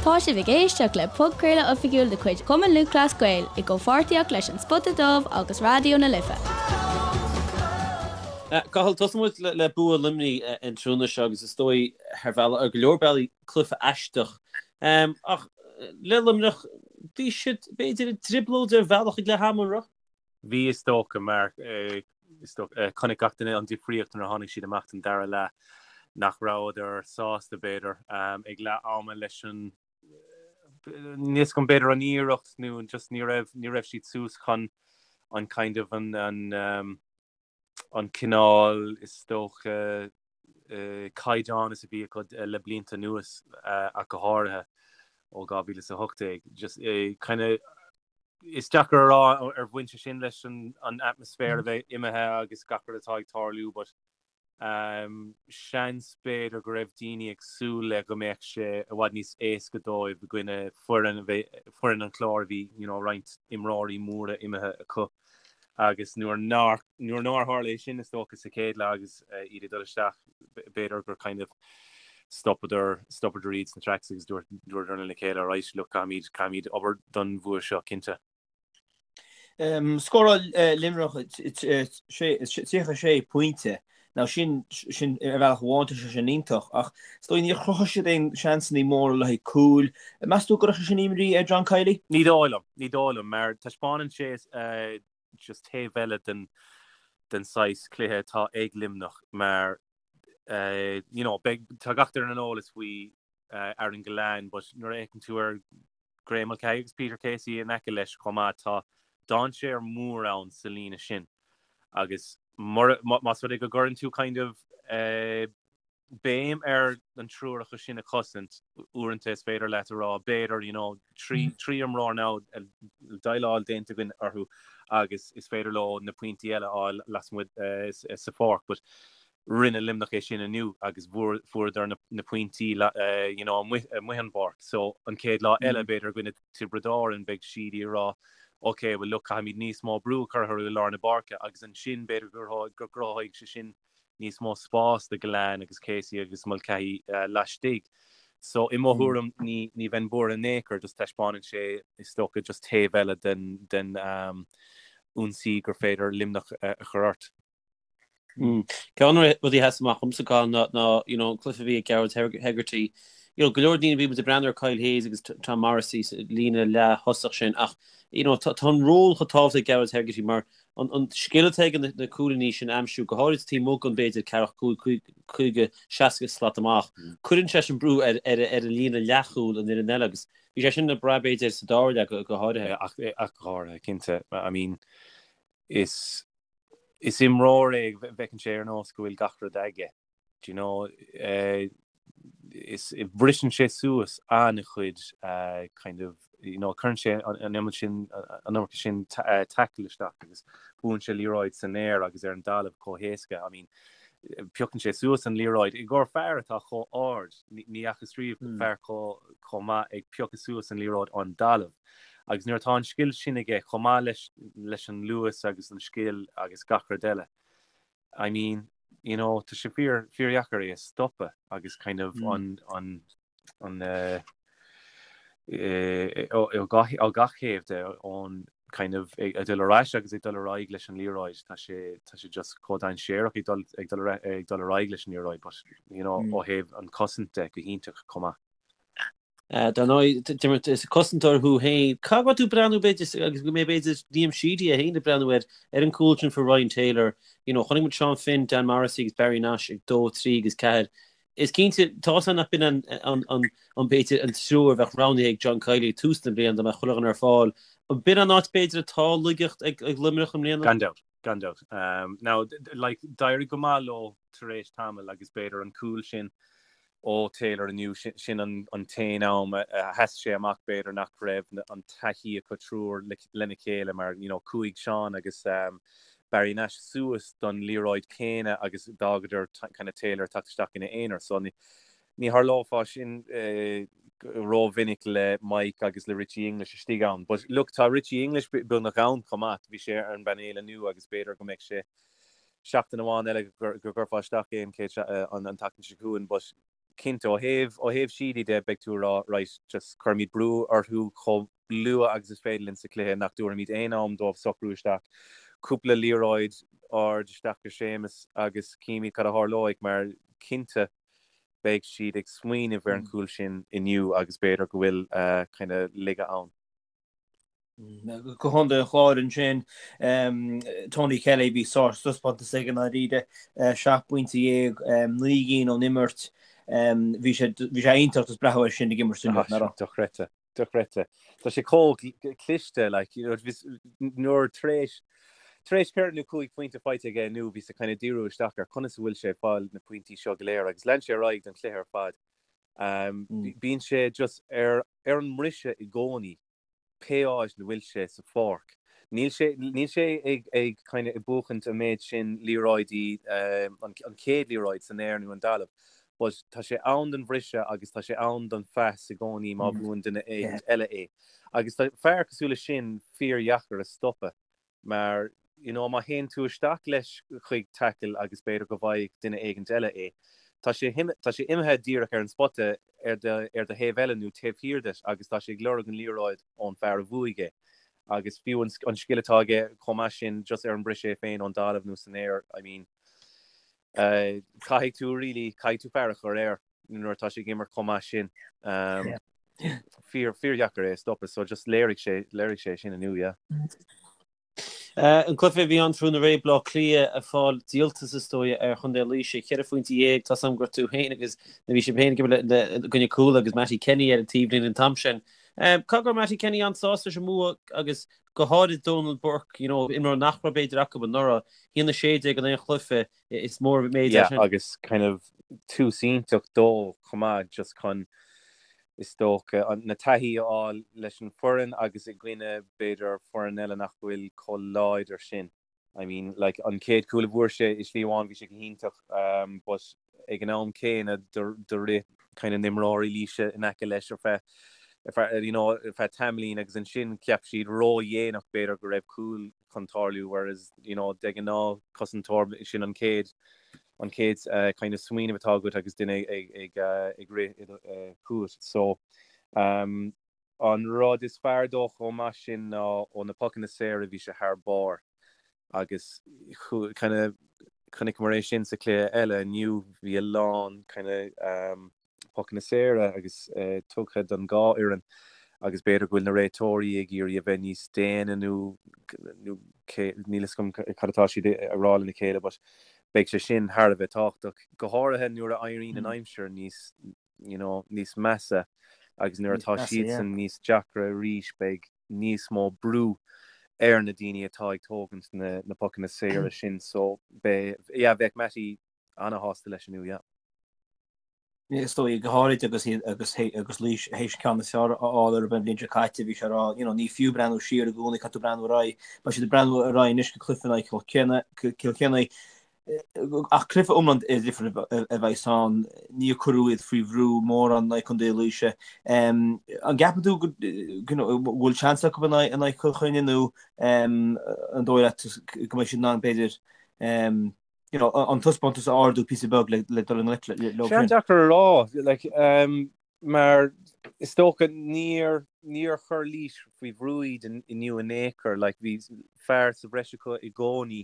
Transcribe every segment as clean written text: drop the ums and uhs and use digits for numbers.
Tá sibh ag éisteacht le podchraoladh oifigiúil de chuid Chumann Lúthchleas Gael i gcomhpháirtíocht leis An Spota Dubh agus Raidió na Life. Cathal, tosóidh muid le bua Luimnigh an tráthnóna seo agus is dóigh ar bhealach, ar go leor bealaí, cluiche aisteach. Ach le Luimneach, bhí siad, b'fhéidir, i dtrioblóid ar bhealach ag leath ama, an raibh? Bhí, is dócha, mar is dócha, chonaic gach duine an difríocht nuair a tháinig siad amach don dara leath, nach rabhadar sásta, b'fhéidir, ag leath ama leis an, níl a fhios agam, b'fhéidir an iarracht nó just ní raibh, ní raibh siad suas chun an kind of an, an, an cineál, is dócha, caighdeán is a bhí acu le blianta anuas ach go háirithe ó 2018. Just kind of is deacair a rá ar bhain sé sin leis an atmaisféar a bheith imithe agus gach rud atá ag tarlú but seans b'fhéidir go raibh daoine ag súil le go mbeadh sé i bhfad níos éasca dóibh i gcoinne foireann a bheith, foireann an Chláir a bhí you know roinnt imreoirí móra imithe acu agus nuair nár, nuair nár tharla é sin is dócha sa chéad leath agus iad ag dul isteach b'fhéidir gur kind of stopadar, stopadar iad sna tracks agus dúirt, dúradar lena chéile right look caithfimid, caithfimid obair don bhua seo cinnte. Scóráil Luimneach 36 pointe. Now sin, sin ar bhealach amháin tá sé sin iontach ach is dóigh níor chruthaigh siad aon seansanna móra le haghaidh cúil. Meas tú go gcuirfeadh sé sin imní ar John Kiely? Ní dóigh liom, ní dóigh liom mar taispeánann sé just taobh eile den den saghas cluiche atá ag Luimneach mar you know beidh, tá gach duine ar an eolas faoi Aaron Gillane but nuair a fhéachann tú ar Graeme Mulcahy agus Peter Casey in aice leis chomh maith. Tá dainséar mór ann sa líne sin agus más rud é go gcuireann tú kind of béim ar an triúr acu sin a chosaint, uaireanta is féidir leat a rá b'fhéidir you know trí imreoir now déileáil déanta againn orthu agus is féidir leo na pointí eile a fháil lasmuigh sa pháirc but Rinne Luimneach é sin inniu agus fuaireadar na pointí you know amuigh an bpáirc. So an chéad lá eile b'fhéidir i gcoinne Tiobraid Árann beidh siad ag rá ok well look caithfimid níos mó brú a chur orthu i lár na páirce agus ansin b'fhéidir go gcruthóidh sé sin níos mó spás do Gillane agus Casey agus Mulcahy laistigh. So i mo thuairim ní ní bheinn buartha in aon chor just taispeánann sé is dócha just taobh eile den den ionsaí gur féidir Luimneach a chur ort. Ceann de na rudaí a sheas amach dhomsa, Cathal, ná you know an cluiche a bhí ag Gearóid Hegarty. You know, go leor daoine bhí muid ag breathnú ar Kyle Hayes agus Tom Morrissey sa líne leath-thosach sin ach you know tá an ról chomh tábhachtach ag Gearóid Hegarty mar an scil atá aige na cúilíní sin a aimsiú, go háirid taobh amuigh den b'fhéidir ceathracha 5, 50, 60 slat amach. Cuireann sé sin brú ar ar an líne leathchúil an fhoireann eile agus bhí sé sin le brath b'fhéidir sa dara leath go háirithe. Ach go háirithe, cinnte. I mean, is is imreoir é go bhfeiceann sé ar nós go bhfuil gach rud aige, do you know, is briseann sé suas an-chuid kind of, you know, cuireann sé an iomad sin, an iomarca sin tackle isteach agus buann sé liathróid san aer agus ar an dtalamh chomh héasca. I mean, piocann sé suas an liathróid i gcomhair fear atá chomh ard, ní fhacthas riamh fear chomh maith ag piocadh suas an liathróid ón dtalamh. Agus nuair atá an scil sin aige, chomh maith leis leis an luas agus an scil agus gach rud eile, I mean, you know, tá sé fíor, fíordheacair é a stopadh agus kind of an, an, an eh, eh, ó, ó gach, ó gach thaobh de, ón kind of ag, ag dul ar ais agus ag dul ar aghaidh leis an liathróid, tá sé, tá sé just chomh dainséarach ag dul, ag dul ar, ag dul ar aghaidh leis an liathróid, but, you know, ó thaobh an chosaint de, go hiontach chomh maith. Dar ndóigh, Diarmuid, is cosantóir thú féin. Cá raibh tú ag breathnú, b'fhéidir, agus go mbeidh, b'fhéidir, Liam Sheedy é féin ag breathnú ar ar an gcúl sin fuair Ryan Taylor. You know, chonaic muid Seán Finn, Dan Morrissey agus Barry Nash ag dó, trí agus ceathair. Is cinnte, tá a fhios nach b'in an, an, an, an, b'fhéidir, an triúr a bheadh roghnaithe ag John Kiely ag tús na bliana dá mbeadh chuile dhuine ar fáil. An b'in an áit, b'fhéidir, atá laigeacht ag, ag Luimneach i mbliana? Gan dabht, gan dabht. Now, like, d'éirigh go maith leo tar éis tamaill agus b'fhéidir an cúl sin ó Taylor inniu, sin an t-aon am a sheas sé amach b'fhéidir nach raibh an taithí acu triúr lena chéile mar you know chuaigh Seán agus Barry Nash suas don liathróid céanna agus d'fhágadar kind of Taylor ag teacht isteach ina aonar so ní tharlófá sin rómhinic le Mike agus le Richie English istigh ann. But look tá Richie English beagnach ann chomh maith, bhí sé ar an bpainéal inniu agus b'fhéidir go mbeidh sé seachtain amháin eile go gcuirfeá isteach é an chéad an tseachtain seo chugainn but. Cinnte, ó thaobh, ó thaobh Sheedy de, beidh tú ag rá, right, just cuirfimid brú orthu chomh luath agus is féidir linn sa chluiche, nach dtabharfaimid aon am dóibh socrú isteach. Cúpla liathróid ard isteach go Séamus agus címid cad a tharlóidh mar cinnte beidh siad ag smaoineamh ar an chúl sin inniu agus b'fhéidir go bhfuil kind of laige ann. Go Contae an Chláir ansin, Tony Kelly, bhí sárthaispeántas aige i ndáiríre, 17 bpointe, 9 gcinn ón imirt. Bhí sé bhí sé iontach just breathnú air sin ag imirt inniu, nach raibh? Dochreidte, dochreidte. Tá sé chomh cliste, like, you know, nuair tar éis tar éis 4 nó 5 phointe faighte aige inniu, bhíos ag kind of díriú isteach ar conas a bhfuil sé ag fáil na pointí seo go léir agus lean sé ar aghaidh don chluiche ar fad. Bíonn sé just ar ar an mbriseadh i gcónaí, pé áit ina bhfuil sé sa pháirc. Níl sé, níl sé ag, ag kind of ag buachaint an méid sin liathróidí, an, an chéad liathróid san aer nó an talamh, but tá sé ann don bhriseadh agus tá sé ann don phas i gcónaí má bhuann duine éigint eile é. Agus tá fear cosúil leis sin fíordheacair a stopadh. Mar, you know, má théann tú isteach leis chuig tackle agus b'fhéidir go bhfaighidh duine éigint eile é, tá sé, tá sé imithe díreach ar an spota ar do, ar do thaobh eile nó taobh thiar duit agus tá sé ag lorg an liathróid ón fear a bhuaigh é. Agus fiú an, an scil atá aige chomh maith sin just ar an briseadh é féin ón dtalamh nó san aer, I mean, eh, caithfidh tú really, caithfidh tú fear a chur air. nuair atá sé ag imirt chomh maith sin. Fíor, fíordheacair é a stopadh, so just léirigh sé, léirigh sé sin inniu, yeah. An cluiche a bhí ann tráthnóna aréir, Baile Átha Cliath ag fáil díoltas is dóigh ar Chontae Laoise, 14 phointe, tá 's agam go raibh tú féin agus nó bhí sibh féin ag imirt le i gcoinne Cuala agus Mattie Kenny ar an taobhlíne an t-am sin. Caithfidh go raibh Mattie Kenny an-sásta leis an mbua agus go háirid Donal Burke, you know, imreoir nach raibh b'fhéidir acu anuraidh, 1-16 in aon chluiche, Is mór an méid é sin. Agus kind of tús iontach dó chomh maith just chun is dócha na taithí a fháil leis an foireann agus i gcoinne b'fhéidir foireann eile nach bhfuil chomh láidir sin. I mean like an chéad chúl a bhfuair sé i slí amháin bhí sé go hiontach um, but ag an am céanna do rith kind of na himreoirí Laoise in aice leis ar feadh ar feadh you know ar feadh tamaillín agus ansin cheap siad ródhéanach b'fhéidir go raibh cúl chun tarlú whereas you know de ghnáth cosantóir sin an chéad an chéad uh, kind of smaoineamh atá agat agus duine ag ag uh, ag rith uh, chugat so um, an rud is fearr dó chomh maith sin ná ó na pocanna saora bhí sé thar barr agus kind of chonaiceamar é sin sa chluiche eile inniu bhí a lán kind of um, pocanna saora agus tugtha don dhá fhoireann agus b'fhéidir go bhfuil na réiteoirí ag iarraidh a bheith níos déine nó níl fhios agam cad atá siad a rá lena chéile but beidh sé sin thar a bheith tábhachtach, go háirithe nuair a éiríonn an aimsir níos you know níos measa agus nuair atá siadsan níos deacra arís beidh níos mó brú ar na daoine atá ag tógaint na na pocanna saora sin so beidh yeah bheadh Mattie ana-shásta leis inniu yeah. Is dóigh, go háirid agus iad agus agus Laois théis an ceann is fearr a fháil orthu an bhliain seo caite, bhí sé ag rá, you know, ní fiú breathnú siar i gcónaí, caithfidh tú breathnú ar aghaidh. Beidh siad ag breathnú ar aghaidh anois go cluiche in aghaidh Chill Cill Chainnigh, ach cluiche iomlán difriúil a bheas ann, níor cuireadh iad faoi bhrú mórán in aghaidh Contae Laoise. An gceapann tú go bhfuil seans acu in aghaidh Chill Chainnigh nó an dóigh leat go mbeidh siad in ann b'fhéidir you know, an taispeántas a ardú píosa beag le, le dul i ngleic leo sin. An-deacair a rá, like, um, mar is dócha níor, níor chuir Laois faoi bhrú iad inniu in aon chor, like, bhí fear sa bhreis acu i gcónaí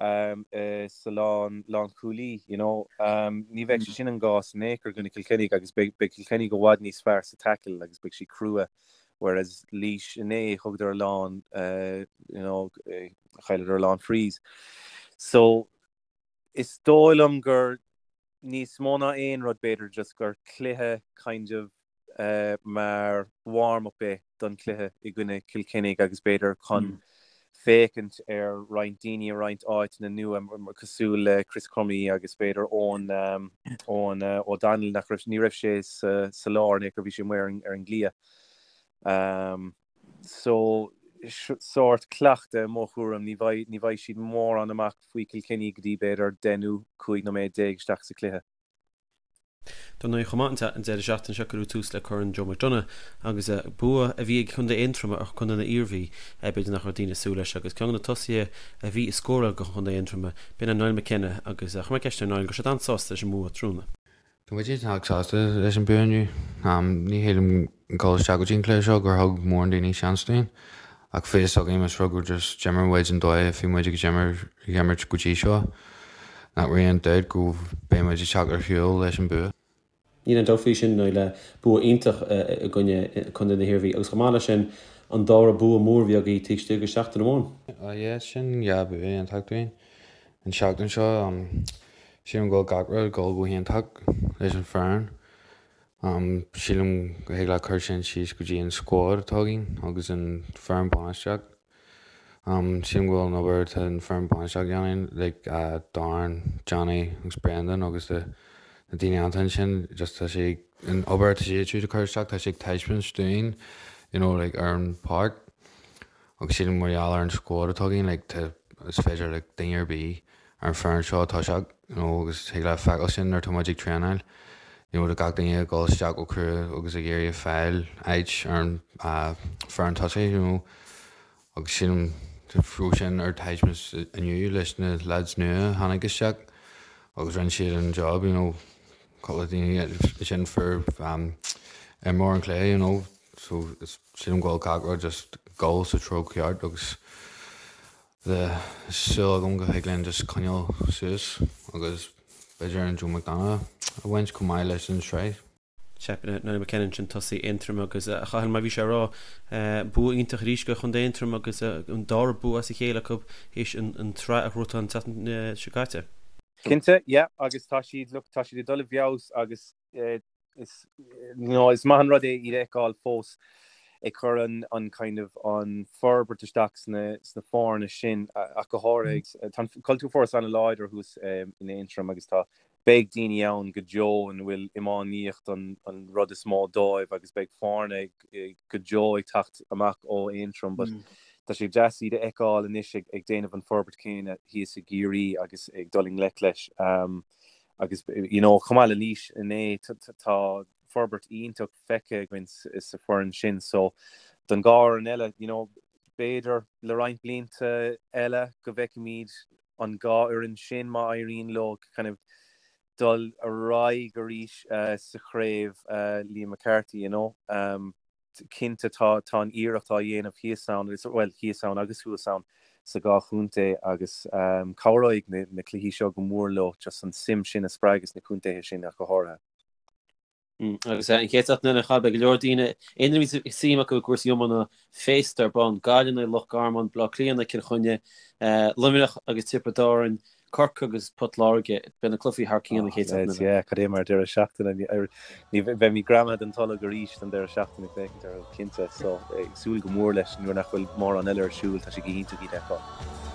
um, uh, sa lán, lánchúlaí, you know, um, ní bheidh sé sin an gcás in aon chor i gcoinne Cill Chainnigh agus beidh, beidh Cill Chainnigh i bhfad níos fearr sa tackle agus beidh siad crua whereas Laois inné thugadar a lán uh, you know, uh, chailleadar a lán frees. So is dóigh liom gur níos mó ná aon rud b'fhéidir just gur cluiche kind of uh, mar warm-up é don chluiche i gcoinne Cill Chainnigh agus b'fhéidir chun mm. féachaint ar roinnt daoine i roinnt áiteanna nua cosúil le Chris Crummey agus b'fhéidir Eoin um, Eoin uh, O'Donnell nach raibh ní raibh sé sa, sa lár ní bhí sé amuigh ar, ar an gcliath. Um, so sórt cleachtadh i mo thuairim, ní bheidh, ní bheidh siad mórán amach faoi Cill Chainnigh go dtí b'fhéidir 10 nó 15 nóiméad isteach sa chluiche. Dar ndóigh chomh maith an deireadh seachtaine seo cuireadh tús le Corn Joe McDonagh agus bua a bhí ag Contae Aontroma ar Chontae na hIarmhí, b'fhéidir nach raibh daoine ag súil leis agus ceann de na tosaithe a bhí ag scóráil do Chontae Aontroma, b'in é Niall McKenna agus chuir mé ceist ar Niall go raibh sé an-sásta leis an mbua tráthnóna. Tá muid iontach sásta leis an bua inniu. Ní shílim dul isteach go dtí an cluiche seo gur thug mórán daoine seans dúinn. Ach bhí fhios againn más rud gur just d'imir muid an dóigh a bhí muid ag imirt go dtí seo, nach raibh aon dabht go beidh muid ag teacht ar shiúl leis an bua. Níl aon dabht faoi sin, Niall, bua iontach i gcoinne Contae na hIarmhí agus chomh maith leis sin an dara bua mór a bhí agaibh taobh istigh de sheachtain amháin. Yeah, sin dhá bua iontach dúinn an seachtain seo. Sílim go bhfuil gach rud ag dul go hiontach leis an foireann. Sílim go thig leat cur sin síos go dtí an squad atá againn agus an foireann bainistíocht. Sílim go bhfuil an obair atá an foireann bainistíocht a dhéanamh, like Darren, Johnny agus Brendan agus na daoine iontacha ansin, just tá sé, an obair atá siad siúd ag cur isteach, tá sé ag taispeáint dúinn, you know, like ar an pháirc. Agus sílim mar gheall ar an squad atá againn, like tá, is féidir le duine ar bith ar an foireann seo toiseacht, you know, agus thig leat feiceáil sin nuair atá muid ag traenáil, you know, tá gach duine ag dul isteach go crua agus ag iarraidh fáil áit ar an foireann tosaigh, you know, agus sílim go raibh sin ar taispeáint inniu leis na lads nua a tháinig isteach agus rinne siad an job, you know, cúpla daoine sin fuair imreoir an chluiche, you know. So sílim go bhfuil gach rud just ag dul sa treo ceart agus tá súil agam go thig linn just coinneáil suas agus b'fhéidir an Joe McDonagh a bhaint chomh maith leis an sraith. Sea, Niall McKenna ansin tosaí Aontroim agus a Chathail mar bhí sé a rá, bua iontach arís do Chontae Aontroim agus an dara bua as a chéile acu théis an tsraith a ghnóthachtáil an tseachtain seo caite. Cinnte, yeah, agus tá siad, look, tá siad ag dul i bhfeabhas agus Is, you know, is maith an rud é iad a fheiceáil fós ag cur an, an kind of, an forbairt isteach sna, sna foirne sin ach go háirithe. Tá an cultúr fós an-láidir thuas in Aontroim agus tá, beidh daoine ann go deo ina bhfuil iománaíocht an, an rud is mó dóibh agus beidh foirne go deo ag teacht amach ó Aontroim but tá sé deas iad a fheiceáil anois ag, ag déanamh an forbairt céanna thíos i gCiarraí agus ag dul i ngleic leis. Agus you know chomh maith le Laois inné tá forbairt iontach feicthe againn sa foireann sin so don dhá fhoireann eile you know b'fhéidir le roinnt blianta eile go bhfeicfimid an dhá fhoireann sin má éiríonn leo kind of dul ar aghaidh arís sa chraobh Liam McCarthy you know. Cinnte tá tá an iarracht á dhéanamh thíos ann, bhuel thíos ann agus thuas ann sa dhá chontae agus cabhróidh na cluichí seo go mór leo just an suim sin a spreagadh sna contaetha sin ach go háirithe. Agus an chéad seachtain eile beidh go leor daoine, aon duine a bhí suim acu i gcúrsaí iomána féasta ar bun, Gaillimh in aghaidh Loch Garman, Baile Átha Cliath in aghaidh Cill Chainnigh, Luimneach agus Tiobraid Árann, Corcaigh agus Port Láirge, beidh na cluichí thar cionn an chéad seachtain eile. Yeah, cad é mar deireadh seachtaine. Ní bheimid greamaithe den tolg arís don deireadh seachtaine ag féachaint orthu, cinnte. So, ag súil go mór leis nuair nach bhfuil mórán eile ar siúl, tá sé go hiontach iad a fheiceáil.